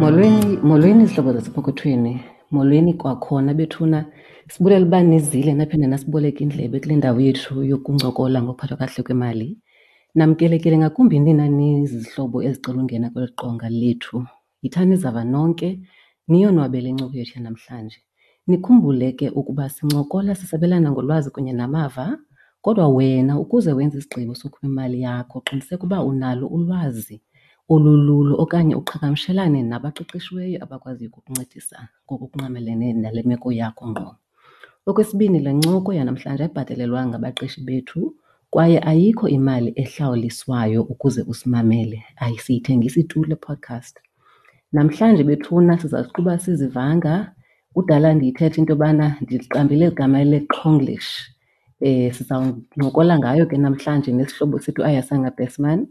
Molweni, molweni zihlobo zasepokothweni. Molweni kwakhona bethuna. Sibulela uba nizile naphinde nasiboleka indlebe kule ndawo yethu yokuncokola ngokuphathwa kakuhle kwemali. Namkelekile ngakumbi nina nizizihlobo ezicela ungena kweli qonga lethu. Yithani izava nonke, niyonwabele incoko yethu yanamhlanje. Nikhumbule ke ukuba sincokola sisabelana ngolwazi kunye namava, kodwa wena ukuze wenze isigqibo sokhupha imali yakho qiniseka uba unalo ulwazi olululo okanye uqhagamshelane nabaqeqeshiweyo abakwaziyo ukukuncedisa ngokungqamelene nale meko yakho ngqo. Okwesibini, le ncoko yanamhlanje ayibhatalelwanga ngabaqeshi bethu kwaye ayikho imali ehlawuliswayo ukuze usimamele, asiyithengisi tu le podcast. Namhlanje bethuna siza kuqhuba sizivanga. Kudala ndiyithetha into yobana ndiliqambile eli gama leQhonglish. Sizawuncokola ngayo ke namhlanje nesihlobo sethu uAyasanga Besman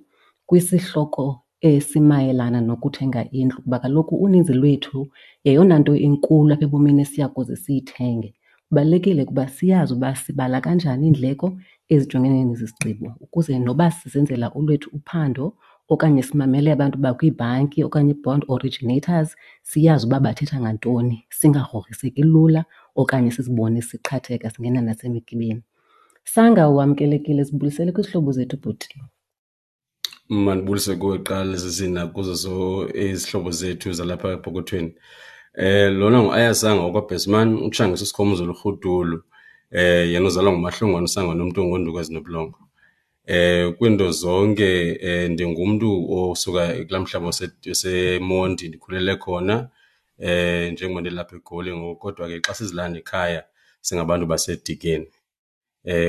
kwisihloko esimayelana nokuthenga indlu kuba kaloku uninzi lwethu yeyona nto inkulu apha ebomini esiya kuze siyithenge. Kubalulekile ukuba siyazi uba sibala kanjani iindleko ezijongene nezi zigqibo ukuze noba sizenzela olwethu uphando okanye simamele abantu bakwiibhanki okanye ii-bond originators siyazi uba bathetha ngantoni, singagrogriseki lula okanye sizibone siqhatheka singena nasemigibeni. Sanga, wamkelekile, sibulisele kwizihlobo zethu bhuti. Mandibulise kuwe kuqala sisi nakuzo izihlobo zethu zalapha epokothweni. Lona nguAyasanga wakwaBhesman, uTshangisa uSikhomuzolo uRhudulu, yena uzalwa nguMahlongwane uSangane umntu ongoonduku ezinobulongwe. Kwiinto zonke ndingumntu osuka kulaa mhlaba waseMonti, ndikhulele khona njengoba ndilapha eGoli ngoku kodwa ke xa sizilanda ekhaya singabantu baseDikeni.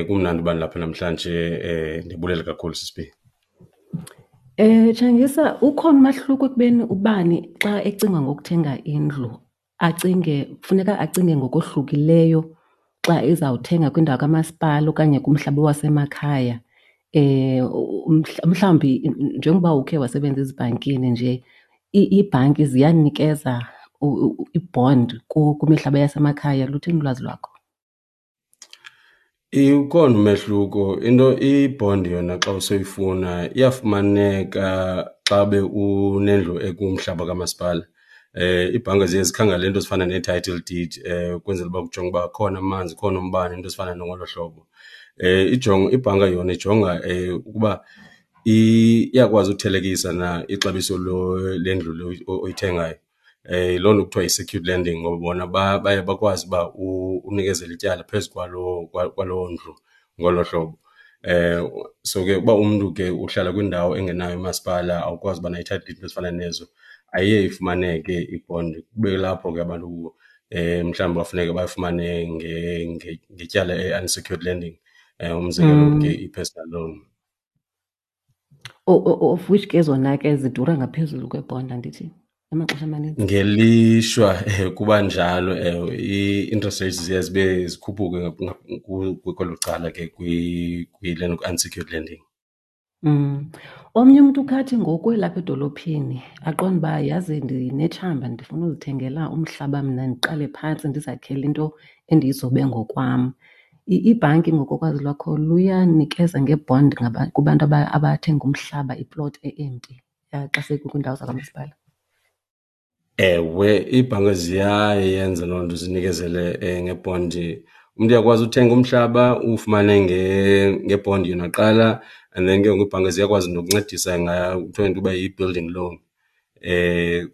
Kumnandi uba ndilapha namhlanje, ndibulela kakhulu sisi B. Tshangisa, ukhona umahluko ekubeni ubani xa ecinga ngokuthenga indlu acinge, funeka acinge ngokohlukileyo xa ezawuthenga kwindawo kamasipala okanye kumhlaba wasemakhaya? Mhlawumbi njengoba ukhe wasebenza ezibhankini nje, iibhanki ziyanikeza i-bond kwimihlaba yasemakhaya? Luthini ulwazi lwakho? Ukhona umehluko. Into i-bond yona xa usoyifuna iyafumaneka xa ube unendlu ekumhlaba kamasipala. Iibhanka ziye zikhangele iinto ezifana nee-title deed ukwenzela uba kujongwe uba akhona amanzi, ukhona umbane, iinto ezifana nangolo hlobo. Ibhanka yona ijonga ukuba iyakwazi uthelekisa na ixabiso lendlu le oyithengayo. Yiloo nto kuthiwa yi-secured lending ngoba bona baye bakwazi uba unikezele ityala phezu kwaloo ndlu ngolo hlobo. So ke uba umntu ke uhlala kwindawo engenayo umasipala, awukwazi uba nayo i-title deed, iinto ezifana nezo, ayiye ifumaneke i-bond. Kube kulapho ke abantu mhlawumbi bafuneke bafumane ngetyala i-unsecured lending, umzekelo ke i-personal loan. Of which ke zona ke zidura ngaphezulu kwebhonda, andithi, amaxesha amaninzi? Ngelishwa kuba njalo, ewe. Ii-interest rates ziye zibe zikhuphuke kwelo cala ke kwi-unsecured lending. Omnye umntu ukhathi ngoku elapha edolophini aqonde uba yazi ndinetshamba ndifuna uzithengela umhlaba mna ndiqale phantsi ndizakhele into endiyizobe ngokwam. Ibhanki ngokokwazi lwakho luyanikeza ngebond kubantu abathenga umhlaba, iplot e-empty xa sekukwiindawo zakwamasipala? Ewe, iibhanka ziyayenza loo nto zinikezele ngebhondi. Umntu uyakwazi uthenga umhlaba uwufumane ngebhondi yona kuqala and then ke ngoku iibhanka ziyakwazi nokuncedisa ngayo, kuthiwa yinto yokuba yi-building loan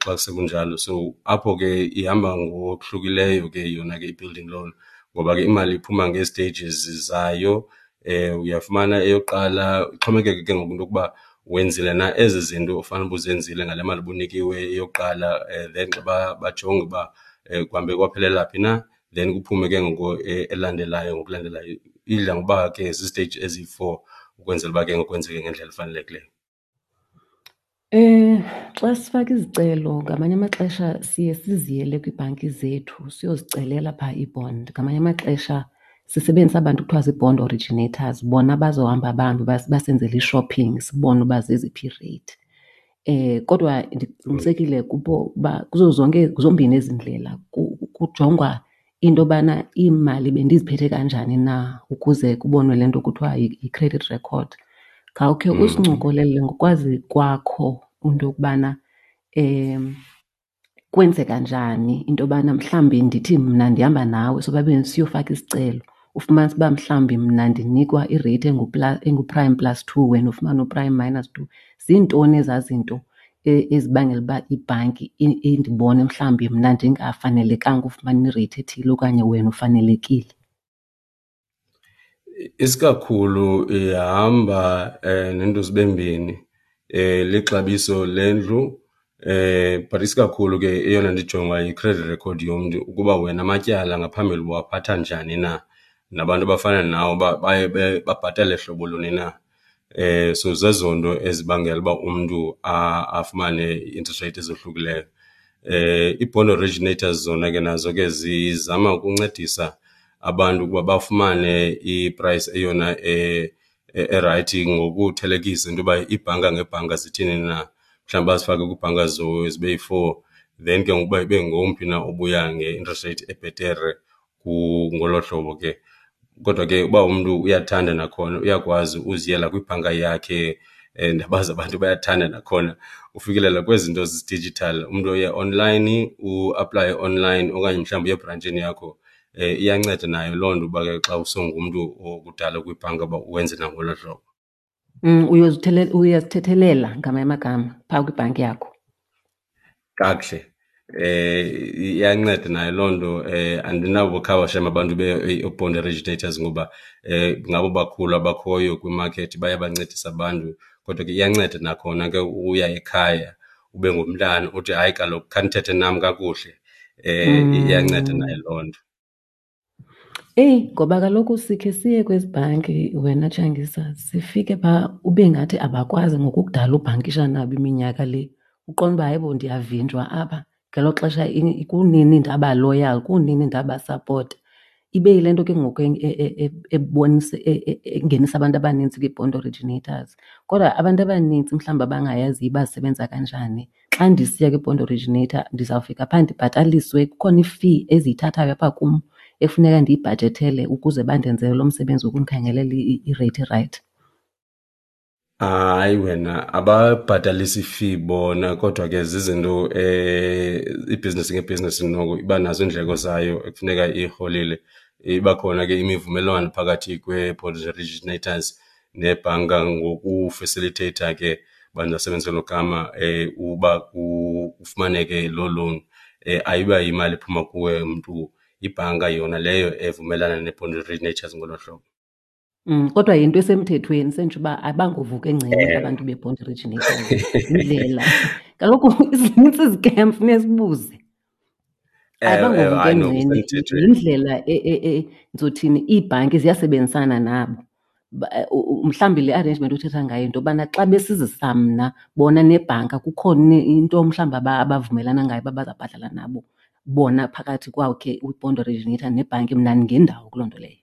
xa sekunjalo. So apho ke ihamba ngokuhlukileyo ke yona ke i-building loan ngoba ke imali iphuma ngee-stages zayo. Uyafumana eyokuqala, ixhomekeke ke ngoku into yokuba wenzile na ezi zinto ufanele uba uzenzile ngale mali ubunikiwe eyokuqala. Then xa bajonge uba kuhambe kwaphelela phi na, then kuphume ke ngoku elandelayo ngokulandelayo. Idla ngokuba ke ziziteyiji eziyi-four ukwenzela uba ke ngoku kwenzeke ngendlela efanelekileyo. Xa sifaka izicelo ngamanye amaxesha siye siziyele kwiibhanki zethu siyozicelela phaa ii-bond. Ngamanye amaxesha sisebenzisa aba bantu kuthiwa zii-bond originators, bona bazohamba bahambe basenzele i-shopping sibone uba zeziphi iireyithi. Kodwa ndiqinisekile kubo uba kuzo zonke, zombini ezi ndlela kujongwa into yobana iimali bendiziphethe kanjani na ukuze kubonwe le nto kuthiwa yi-credit record. Khawukhe usincokolele ngokwazi kwakho into yokubana. Kwenzeka njani into yobana mhlawumbi ndithi mna ndihamba nawe sobabini siyofaka isicelo, ufumanise uba mhlawumbi mna ndinikwa ireythi engu-prime plus 2, wena ufumane u-prime minus 2? Ziintoni ezaa zinto ezibangela uba ibhanki indibone mhlawumbi mna ndingafanelekanga ufumana ireythi ethile okanye wena ufanelekile? Isikakhulu ihamba nento zibe mbini, lixabiso lendlu, but isikakhulu ke eyona nto ijongwayo yi-credit record yomntu ukuba wena amatyala ngaphambili ubuwaphatha njani na, nabantu abafana nawe uba baye babhatale hlobo luni na. So zezo nto ezibangela uba umntu afumane ii-interest rate ezohlukileyo. Ii-bond originators zona ke nazo ke zizama ukuncedisa abantu ukuba bafumane i-price eyona erayithi ngokuthelekisa into yoba iibhanka ngeebhanka zithini na. Mhlawumbi bazifake kwiibhanka zibe yi-four, then ke ngoku uba ibe ngomphi na obuya nge-interest rate ebhetere ngolo hlobo ke. Kodwa ke uba umntu uyathanda nakhona uyakwazi uziyela kwibhanka yakhe, ndiyabazi abantu bayathanda nakhona ufikelela kwezi zinto zi-digital. Umntu uye online, uaplaye online okanye mhlawumbi uye ebrantshini yakho. Iyanceda nayo loo nto uba ke xa usongumntu okudala kwibhanka uba wenze nangolo hlobo. Uyazithethelela ngamanye amagama phaa kwibhanki yakho. Kakuhle. Iyanceda nayo loo nto. Andinabo khaba shem abantu be-bond originators ngoba ngabo bakhulu abakhoyo kwimakethi, bayabancedisa abantu. Kodwa ke iyanceda nakhona ke uya ekhaya ube ngumntana uthi hayi kaloku khanithethe nam kakuhle. Iyanceda nayo loo nto. Eyi, ngoba kaloku sikhe siye kwezi bhanki wena Tshangisa, sifike phaa ube ngathi abakwazi ngokukudala ubhankisha nabo iminyaka le. Uqonde uba hayibo ndiyavinjwa apha, ngelo xesha kunini ndaba loyal, kunini ndabasapota. Ibe yile nto ke ngoku ebonisa, engenisa abantu abanintsi kwii-bond originators. Kodwa abantu abanintsi mhlawumbi abangayaziyo uba zisebenza kanjani, xa ndisiya kwi-bond originator ndizawufika phaa ndibhataliswe, kukhona i-fee eziyithathayo apha kum ekufuneka ndiyibhajethele ukuze bandenzele lo msebenzi wokundikhangelela ireythi erayithi. Hayi wena, ababhatalisi fee bona, kodwa ke zizinto ibhizinesi ngebhizinesi noko iba nazo iindleko zayo ekufuneka iyiholile. Iba khona ke imivumelwano phakathi kwee-bond originators nebhanka ngokufasilitheyitha ke, bandisebenzise elo gama, uba kufumaneke loo loan. Ayiba yimali ephuma kuwe mntu, ibhanka yona leyo evumelana nee-bond originators ngolo hlobo. Kodwa yinto esemthethweni, sentsho uba abangovuka engceni abantu be-bond originators. Yindlela. Kaloku zinintsi izikem, funeka sibuze. Abangovuka Hayi, no, engceni, kusemthethweni. yindlela ndizothini, iibhanki ziyasebenzisana nabo. Mhlawumbi le arrangement othetha ngayo into yobana xa besizisa mna bona nebhanka kukhona into mhlawumbi abavumelana ngayo uba bazawubhatala nabo bona phakathi kwakhe i-bond originator nebhanki, mna ndingendawo kuloo nto leyo.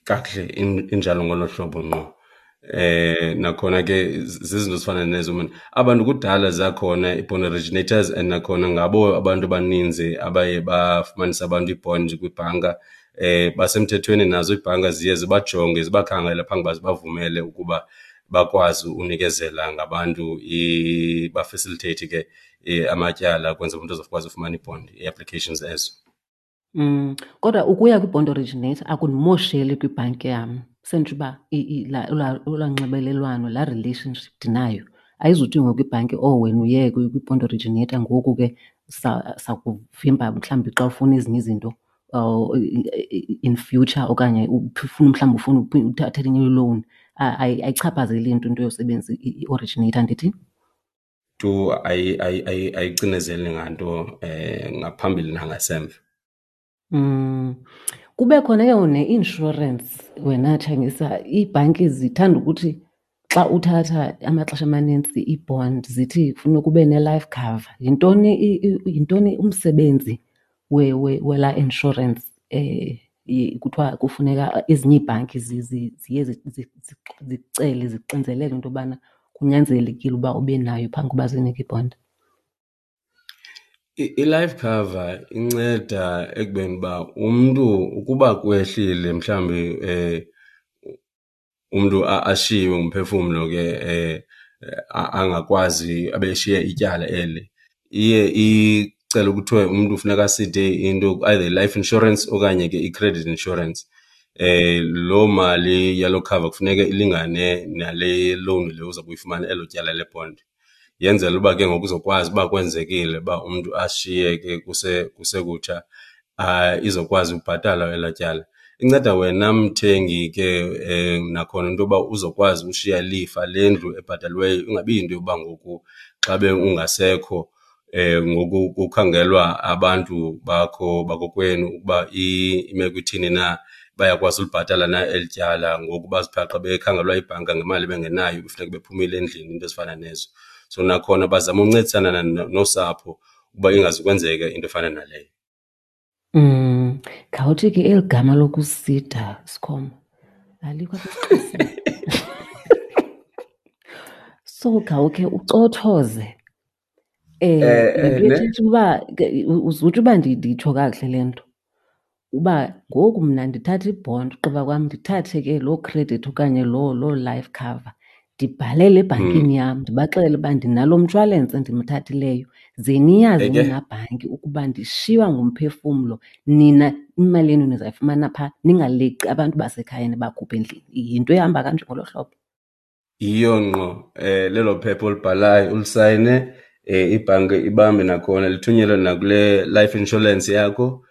Kakuhle, injalo ngolo hlobo ngqo. Nakhona ke zizinto ezifana nezo, man. Abantu kudala zakhona i-bond originators and nakhona ngabo abantu abaninzi abaye bafumanisa abantu ii-bond kwibhanka. Basemthethweni nazo iibhanka ziye zibajonge, zibakhangele phambi uba zibavumele ukuba bakwazi unikezela ngabantu, bafacilitate ke amatyala ukwenzela umntu azokwazi ufumana i-bond, ii-applications ezo. Kodwa ukuya kwi-bond originator akundimosheli kwibhanki yam. Sentsho uba olaa nxibelelwano, laa relationship ndinayo ayizuthi ngoku ibhanki, oh wena uye kwi-bond originator ngoku ke sakuvimba mhlawumbi xa ufuna ezinye izinto in future okanye ufuna mhlawumbi ufuna uthatha enye i-loan. Ayichaphazeli nto into yosebenzisa i-originator, ndithi? Tu ayicinezeli nganto ngaphambili nangasemva. Kube khona ke ngoku ne-insurance wena Tshangisa. Iibhanki zithanda ukuthi xa uthatha amaxesha amanintsi ii-bond zithi kufuneka ube ne-life cover. Yintoni umsebenzi welaa insurance, kuthiwa kufuneka ezinye iibhanki ziye zicele, zixinzelele into yobana kunyanzelekile uba ube nayo phambi koba zinike ibhondi? I-life cover inceda ekubeni uba umntu ukuba kwehlile mhlawumbi umntu ashiywe ngumphefumlo ke angakwazi abe eshiye ityala eli, iye Kucela kuthiwe umntu funeka aside into either i-life insurance okanye ke i-credit insurance. Loo mali yaloo cover kufuneka ilingane nale loan le uza kuyifumana, elo tyala lebhondi. Yenzela uba ke ngoku uzokwazi uba kwenzekile uba umntu ashiyeke kusekutsha izokwazi ubhatalwa elaa tyala. Inceda wena mthengi ke nakhona into yoba uzokwazi ushiya ilifa lendlu ebhataliweyo, ingabi yinto yoba ngoku xa ungasekho ngoku kukhangelwa abantu bakho bakokwenu ukuba imeko ithini na, bayakwazi ulibhatala na eli tyala. Ngoku bazibhaqe bekhangelwa yibhanka ngemali bengenayo kufuneka bephumile endlini, iinto ezifana nezo. So nakhona bazama uncedisana nosapho ukuba ingazukwenzeka into efana naleyo. Khawuthi ke eli gama lokusida, Sikhoma, alikho apha esiXhoseni. So khawukhe ucothoze. Le nto ithetha uba uzutsho uba nditsho kakuhle le nto, uba ngoku mna ndithatha ibhondi ugqiba kwam ndithathe ke loo credit okanye loo life cover ndibhalele ebhankini yam ndibaxelele uba ndinalo mshwalense ndimthathileyo, ze niyazi nina bhanki ukuba ndishiywa ngumphefumlo, nina imali yenu nizayifumana phaa, ningaleqi abantu basekhaya nibakhuphe endlini. Yinto ehamba kanje ngolo hlobo? Yiyo ngqo, lelo phepha olibhalayo ulisayine, ibhanki ibambe nakhona lithunyelwe nakule life insurance yakho.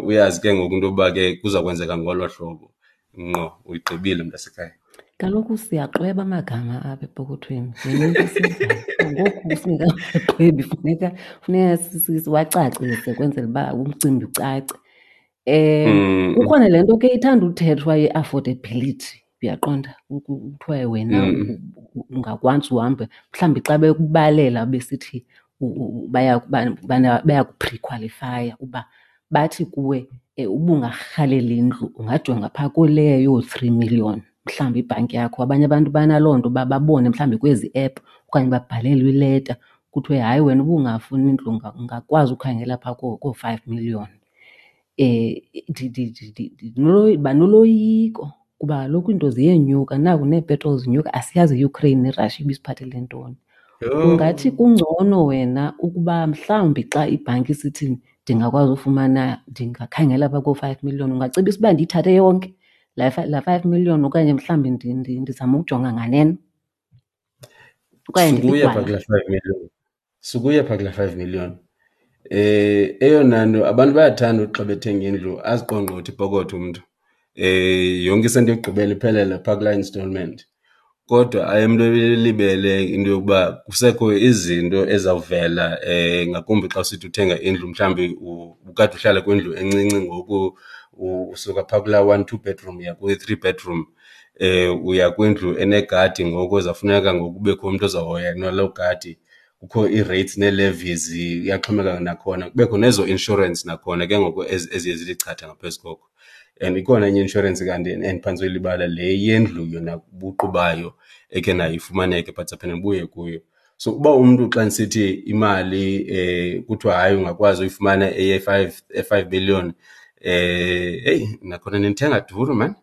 Uyazi ke ngoku into yokuba ke kuza kwenzeka ngolo hlobo. Ngqo, uyigqibile mntasekhaya. Kaloku siyaxweba amagama apha epokothweni, yinto esiyenzayo. Ngoku singekaxwebi funeka siwacacise kwenzela uba umcimbi ucace. Kukhona le nto ke ithanda uthethwa ye-affordability, uyaqonda? Kuthiwe wena ungakwazi uhambe, mhlawumbi xa bekubalela besithi bayakuphrikhwalifaya uba bathi kuwe uba ungarhalela indlu ungajonga phaa kuleyo yoo-three million mhlawumbi ibhanki yakho. Abanye abantu banaloo nto uba babone mhlawumbi kwezi app okanye babhalelwe ileta kuthiwe hayi wena uba ungafuni indlu ungakwazi ukhangela phaa koo-five million. Ndiba noloyiko kuba kaloku iinto ziyenyuka, naku neepetroli zinyuka, asiyazi iUkraine neRussia ibisiphathele ntoni. Ungathi kungcono wena ukuba mhlawumbi xa ibhanki isithi ndingakwazi ufumana, ndingakhangela phaa koo-five million, ungacebisa uba ndiyithathe yonke laa 5 million okanye mhlawumbi ndizame ukujonga nganeno? Okanye Sukuya phaa kulaa 5 million. Sukuya phaa kulaa 5 million. Eyona nto abantu bayathanda uthi xa bethenga indlu aziqongqothe ipokotho umntu. Yonke isenti yokugqibela iphelele phaa kulaa installment. Kodwa aye umntu elibele into yokuba kusekho izinto ezawuvela ngakumbi xa usithi uthenga indlu mhlawumbi ubukade uhlala kwindlu encinci ngoku usuka phaa kulaa 1, 2 bedroom uya kwi-3 bedroom. Uya kwindlu enegadi ngoku ezawufuneka ngoku kubekho umntu ozawuhoya naloo gadi. Kukho ii-rates nee-levies, iyaxhomekeka nakhona. Kubekho nezo insurance nakhona ke ngoku eziye zithi chatha ngaphezu koko. And ikhona enye i-insurance kanti endiphantse uyilibala, le yendlu yona buqu bayo ekhe nayo ifumaneke but siphinde ndibuye kuyo. So uba umntu xa ndisithi imali kuthiwa hayi ungakwazi uyifumana eye-five million, heyi nakhona nindithenga duru maan.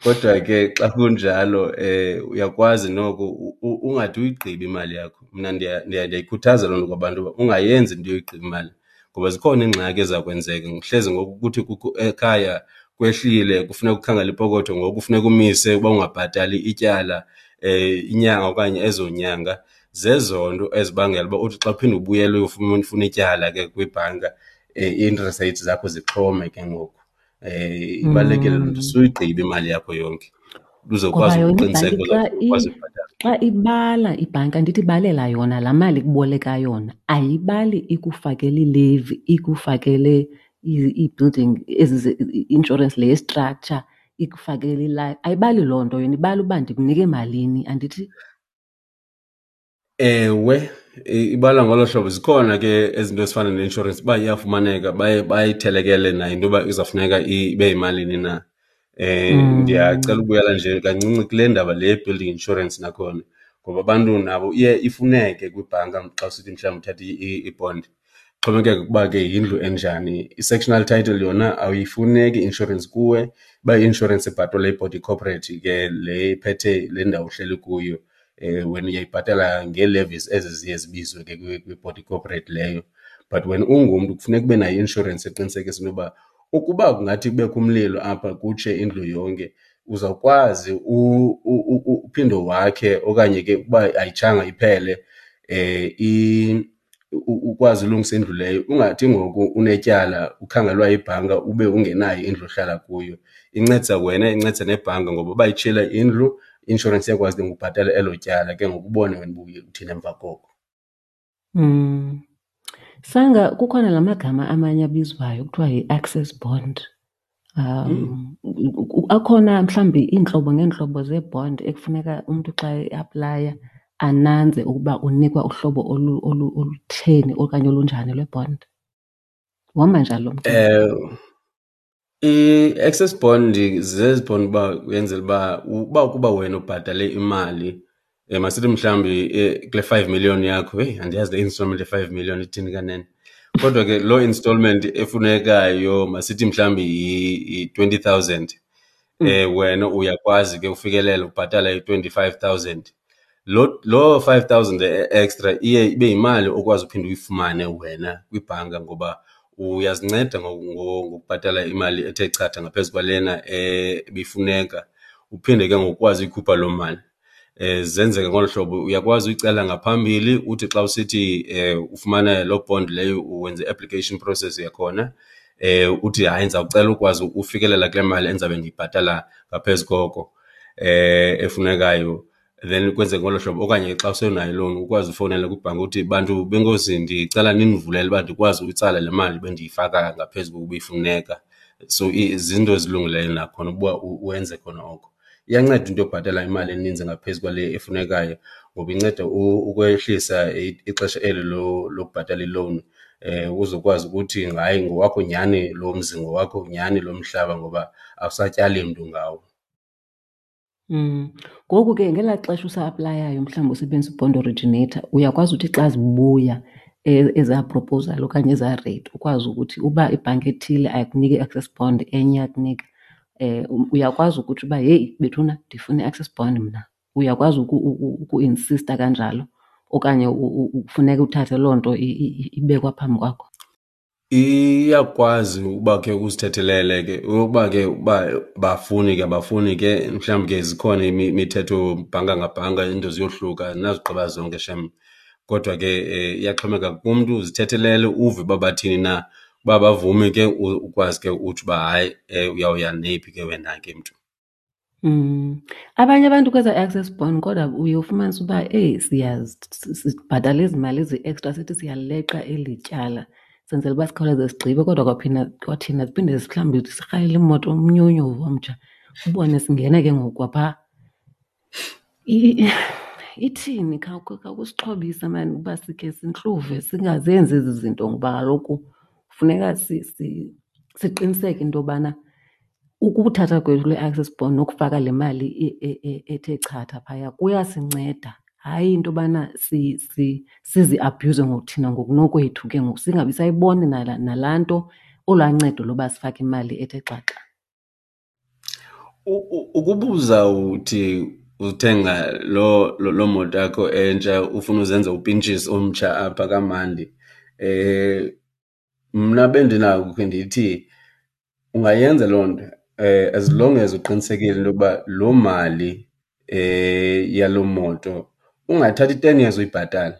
Kodwa ke xa kunjalo uyakwazi noko ungade uyigqibe imali yakho. Mna ndiyayikhuthaza loo nto kwabantu uba ungayenzi into yoyigqiba imali ngoba zikhona iingxaki eziza kwenzeka. Hleze ngoku kuthi kukho ekhaya kwehlile kufuneka ukhangele ipokotho ngoku kufuneka umise uba ungabhatali ityala inyanga okanye ezo nyanga. Zezo nto ezibangela uba uthi xa uphinde ubuyele uyofuna ityala ke kwibhanka, ii-interest rates zakho zixhome ke ngoku. Ibalulekile loo nto, suyigqibe imali yakho yonke uzokwazi Ngoba yona ukuqiniseka ibhanki xa uzokwazi ukubhatala. Xa ibala ibhanki, andithi ibalela yona laa mali ikuboleka yona, ayibali ikufakele ilevi, ikufakele ii-building ezi i-insurance le ye-structure, ikufakele ilife, ayibali loo nto yona, ibala uba ndikunike malini, andithi? Ewe, ibala ngolo hlobo. Zikhona ke ezinto ezifana ne-insurance uba iyafumaneka baye bayithelekele nayo into yoba izawufuneka ibe yimalini na. Ndiyacela ukubuyela nje kancinci kule ndaba le ye-building insurance nakhona, ngoba abantu nabo iye ifuneke kwibhanka xa usithi mhlawumbi uthatha ibhondi. Xhomekeka ukuba ke yindlu enjani. I-sectional title yona ayifuneki i-insurance kuwe, uba i-insurance ibhatalwa yibody corporate ke le iphethe le ndawo uhleli kuyo. Wena uyayibhatala ngee-levies ezi ziye zibizwe ke kwi-body corporate leyo. But wena ungumntu kufuneka ube nayo i-inshorensi eqinisekisa into yoba ukuba kungathi kubekho umlilo apha kutshe indlu yonke uzawukwazi uphinde wakhe okanye ke ukuba ayitshanga iphele ukwazi ulungisa indlu leyo. Ungathi ngoku unetyala ukhangelwa yibhanka ube ungenayo indlu ohlala kuyo. Incedisa wena, incedisa nebhanka ngoba uba itshile indlu i-inshorensi iyakwazi ke ngokubhatala elo tyala ke ngoku ubone wena uba uye uthini emva koko. Sanga kukhona la magama amanye abizwayo kuthiwa yi-access bond. Akhona mhlawumbi iintlobo ngeentlobo zee-bond ekufuneka umntu xa eaplaya ananze ukuba unikwa uhlobo olutheni okanye olunjani lwe-bond? Uhamba njani lo mcimbi? I-access bond zezi bond uba uyenzela uba uba ukuba wena ubhatale imali, masithi mhlawumbi kule 5 million yakho, heyi andiyazi le installment ye-5 million ithini kanene. Kodwa ke loo installment efunekayo masithi mhlawumbi yi-20,000, wena uyakwazi ke ufikelela ubhatala i-25,000. Loo 5,000 extra iye ibe yimali okwazi uphinda uyifumane wena kwibhanka ngoba uyazinceda ngokubhatala imali ethe chatha ngaphezu kwalena ebifuneka, uphinde ke ngokukwazi uyikhupha loo mali. Zenzeka ngolu hlobo, uyakwazi uyicela ngaphambili uthi xa usithi ufumana loo bond leyo wenze i-application process yakhona, uthi hayi ndizawucela ukwazi ufikelela kule mali endizabe ndiyibhatala ngaphezu koko efunekayo. Then kwenzeke ngolo hlobo. Okanye xa usenayo iloan ukwazi ufowunela kwibhanki uthi bantu benkosi ndicela nindivulele uba ndikwazi uyitsala le mali bendiyifaka ngaphezu kokuba ifuneka. So zinto ezilungileyo nakhona ukuba wenze khona oko. Iyanceda into yobhatala imali eninzi ngaphezu kwale efunekayo ngoba inceda ukwehlisa ixesha eli lokubhatala ilowuni, uzokwazi ukuthi hayi ngowakho nyhani lo mzi, ngowakho nyhani lo mhlaba ngoba awusatyali mntu ngawo. Ngoku ke ngelaa xesha usa-aplayayo mhlawumbi usebenzisa i-bond originator, uyakwazi uthi xa zibuya ezaa proposal okanye ezaa rate ukwazi ukuthi uba ibhanki ethile ayikuniki i-access bond enye iyakunika, uyakwazi ukuthi uba heyi bethuna ndifuna i-access bond mna. Uyakwazi ukuinsista kanjalo okanye kufuneka uthathe loo nto ibekwa phambi kwakho? Iyakwazi uba ke uzithethelele ke uba ke uba bafuni ke abafuni ke mhlawumbi ke zikhona imithetho bhanka ngabhanka iinto ziyohluka andinazigqiba zonke shem. Kodwa ke iyaxhomekeka kumntu, uzithethelele uve uba bathini na. Uba bavumi ke ukwazi ke utsho uba hayi uyawuya neyiphi ke wena ke mntu. Abanye abantu kweza access bond kodwa uye ufumanise uba eyi sibhatala ezi mali ezi-extra sithi siyaleqa eli tyala senzela uba sikhawuleze sigqibe, kodwa kwaphinda kwathina siphinde mhlawumbi sirhalele imoto umnyunyu omtsha ubone singena ke ngoku kwaphaa. Ithini khawusixhobise maan uba sikhe sintluve singazenzi ezi zinto ngoba kaloku funeka siqiniseke into yobana ukuthatha kwethu le access bond nokufaka le mali ethe chatha phaya kuyasinceda. Hayi into yobana siziabhuyuze ngokuthina ngokunokwethu ke ngoku singabi sayibona nalaa nto olwaa ncedo loba sifake imali ethe xaxa. Ukuba uzawuthi uthenga loo moto yakho entsha ufuna uzenza upintshisi omtsha apha kamandi, mna bendinako ukhe ndithi ungayenza loo nto as long as uqinisekile into yokuba loo mali yaloo moto ungathathi i-10 years uyibhatala.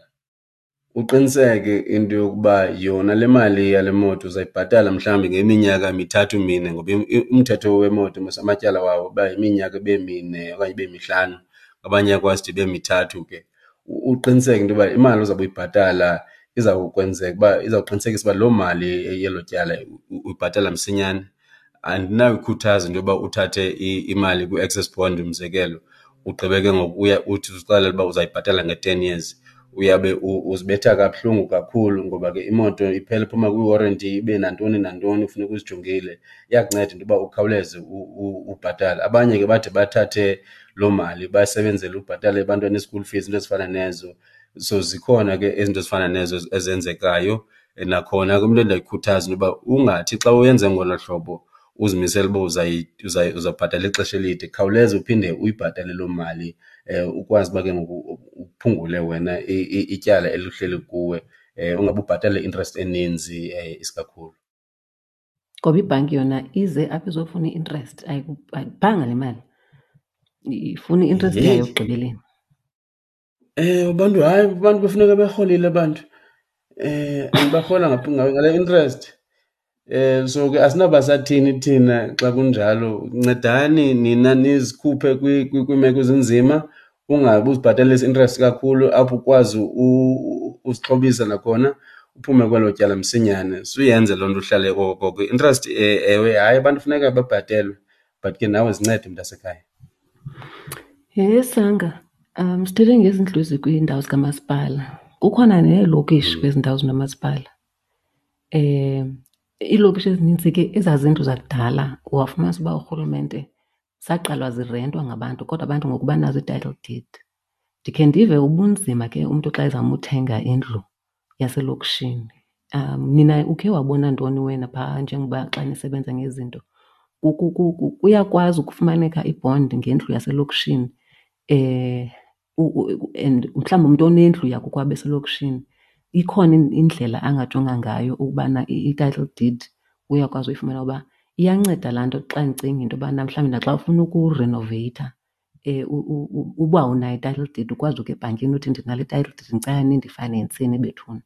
Uqiniseke into yokuba yona le mali yale moto uzayibhatala mhlawumbi ngeminyaka mithathu mine, ngoba umthetho wemoto mos amatyala wawo uba yiminyaka ibe mine okanye ibe mihlanu, abanye ayakwazi ude ibe mithathu ke. Uqiniseke into yoba imali ozawube uyibhatala izawukwenzeka uba izawuqinisekisa uba loo mali yelo tyala uyibhatala msinyane. Andinayikhuthaza into yoba uthathe imali kwi-access bond umzekelo, ugqibe ke ngoku uya uthi uzixelele uba uzayibhatala nge-10 years. Uyabe uzibetha kabuhlungu kakhulu ngoba ke imoto iphela iphuma kwi-warranty ibe nantoni nantoni kufuneka uzijongile. Iyakunceda into yoba ukhawuleze ubhatale. Abanye ke bade bathathe loo mali basebenzele ubhatala ebantwana i-school fees, iinto ezifana nezo. So zikhona ke izinto ezifana nezo ezenzekayo. Nakhona ke umntu endiyayikhuthaza into yoba ungathi xa uyenze ngolo hlobo uzimisele uba uzawubhatala ixesha elide, khawuleza uphinde uyibhatale loo mali. Ukwazi uba ke ngoku uphungule wena ityala elihleli kuwe, ungabe ubhatala i-interest eninzi isikakhulu. Ngoba ibhanki yona ize apha izofuna i-interest, ayikuphanga le mali, ifuna i-interest yayo ekugqibeleni. Abantu hayi, abantu kufuneka berholile abantu, and barhola ngale interest. So ke asinawuba sathini thina xa kunjalo. Ncedani nina nizikhuphe kwiimeko ezinzima, ungabi uzibhatalisa i-interest kakhulu apho ukwazi uzixhobisa nakhona uphume kwelo tyala msinyane. Suyenze loo nto uhlale okokoko. I-interest, ewe, hayi, abantu funeka babhatelwe, but ke nawe zincede mntasekhaya. Yhe Sanga, sithethe ngezindlu ezikwiindawo zikamasipala. Kukhona neelokishi kwezi ndawo zinomasipala. Iilokishi ezinintsi ke ezaa zindlu zakudala wafumanisa uba urhulumente zaqalwa zirentwa ngabantu kodwa abantu ngoku banazo ii-title deed. Ndikhe ndive ubunzima ke umntu xa ezama uthenga indlu yaselokishini. Nina ukhe wabona ntoni wena phaa njengoba xa nisebenza ngezinto? Kuyakwazi ukufumaneka ibhondi ngendlu yaselokishini, and mhlawumbi umntu onendlu yakokwabo eselokishini ikhona indlela angajonga ngayo ukubana i-title deed uyakwazi uyifumana? Uba iyanceda laa nto xa ndicinga into yobana mhlawumbi naxa ufuna ukurenoveyitha, uba unayo i-title deed ukwazi ukuya ebhankini uthi ndinale title deed ndicela nindifayinenseni bethuna.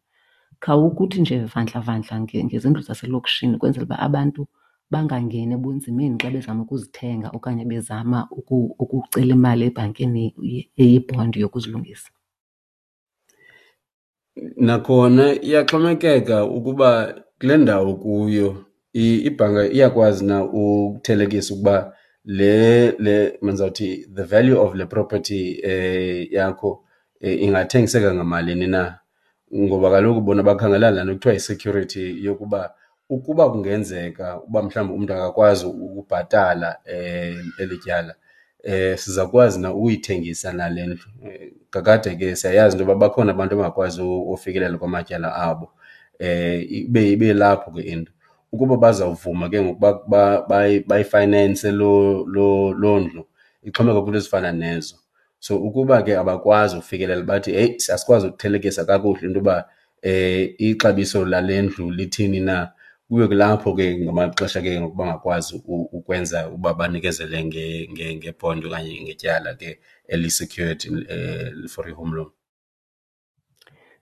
Khawukuthi nje vandla vandla ngezindlu zaselokishini ukwenzela uba abantu bangangeni ebunzimeni xa bezama ukuzithenga okanye bezama ukucela imali ebhankini eyibhondi yokuzilungisa. Nakhona iyaxhomekeka ukuba kule ndawo kuyo ibhanka iyakwazi na ukuthelekisa ukuba le mandizawuthi the value of le property yakho ingathengiseka ngamalini na. Ngoba kaloku bona bakhangela laa nto kuthiwa yi-security yokuba ukuba kungenzeka uba mhlawumbi umntu akakwazi ukubhatala eli tyala, sizawukwazi na ukuyithengisa na le ndlu. Kakade ke siyayazi into yoba bakhona abantu abangakwazi ufikelela kwamatyala abo, ibe lapho ke into. Ukuba bazawuvuma ke ngoku bayifayinense loo ndlu, ixhomekeka kwiinto ezifana nezo. So ukuba ke abakwazi ufikelela bathi heyi asikwazi ukuthelekisa kakuhle into yoba ixabiso lale ndlu lithini na, kube kulapho ke ngamaxesha ke ngoku bangakwazi ukwenza uba banikezele ngebhondi okanye ngetyala ke eli-secured for i-home loan.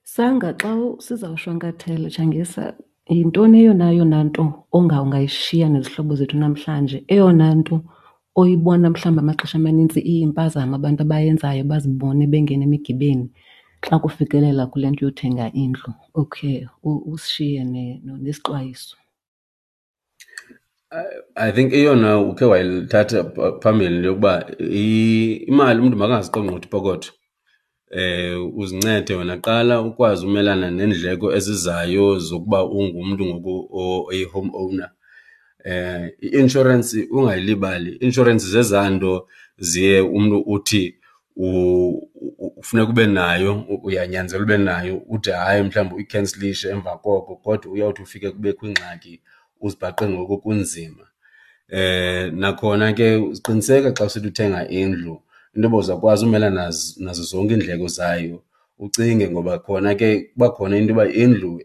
Sanga, xa sizawushwankathela, Tshangisa, yintoni eyona yona nto ungayishiya nezihlobo zethu namhlanje? Eyona nto oyibona mhlawumbi amaxesha amanintsi iyimpazamo abantu abayenzayo bazibone bengena emigibeni xa kufikelela kule nto yothenga indlu? Okay, usishiye nesixwayiso. I think eyona ukhe wayithatha phambili into yokuba imali umntu makangaziqongqothi ipokotho. Uzincede wena qala ukwazi umelana neendleko ezizayo zokuba ungumntu ngoku oyi-home owner. I-inshorensi ungayilibali, i-inshorensi zezaa nto ziye umntu uthi ufuneka ube nayo, uyanyanzelwa ube nayo, ude hayi mhlawumbi uyikhensilishe emva koko, kodwa uyawuthi ufike kubekho ingxaki uzibhaqe ngoku kunzima. Nakhona ke qiniseka xa usithi uthenga indlu into yoba uzawukwazi umelana nazo zonke iindleko zayo, ucinge ngoba khona ke kuba khona into yoba indlu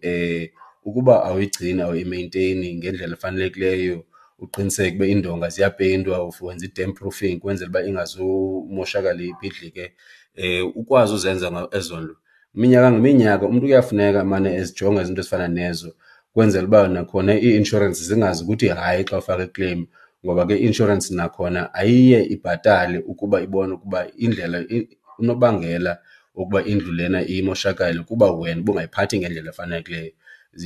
ukuba awuyigcini, awuyimenteyini ngendlela efanelekileyo, uqiniseke uba iindonga ziyapeyintwa, wenza i-damp proofing ukwenzela uba ingazumoshakala ibhidlike, ukwazi uzenza ezo nto. Minyaka ngeminyaka umntu kuyafuneka amane ezijonga izinto ezifana nezo kwenzela uba nakhona ii-inshorensi zingazi ukuthi hayi xa ufaka iclaim, ngoba ke i-inshorensi nakhona ayiye ibhatale ukuba ibone ukuba indlela unobangela wokuba indlu lena imoshakale kuba wena ubungayiphathi ngendlela efanelekileyo.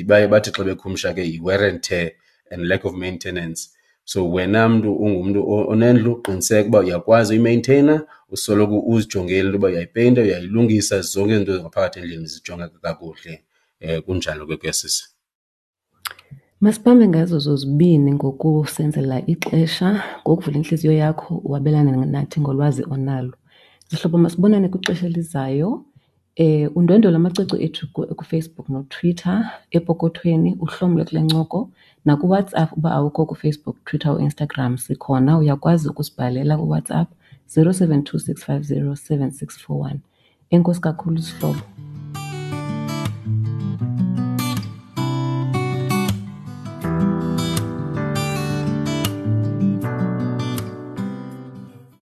Baye bathi xa bekhumsha ke yi-wear and tear and lack of maintenance. So wena mntu ungumntu onendlu, qiniseka uba uyakwazi uyimenteyina, usoloko uzijongile into yoba uyayipeyinta, uyayilungisa, zonke izinto ngaphakathi endlini zijongeka kakuhle. Kunjalo ke kuyasisa. Masibambe ngazo zozibini ngokusenzela ixesha, ngokuvula intliziyo yakho wabelane nathi ngolwazi onalo. Zihlobo, masibonane kwixesha elizayo. Undwendwele amacwecwe ethu kuFacebook noTwitter, epokothweni uhlomle kule ncoko. NakuWhatsApp uba awukho kuFacebook, Twitter, uInstagram sikhona, uyakwazi ukusibhalela kuWhatsApp. 072 650 7641. Enkosi kakhulu zihlobo.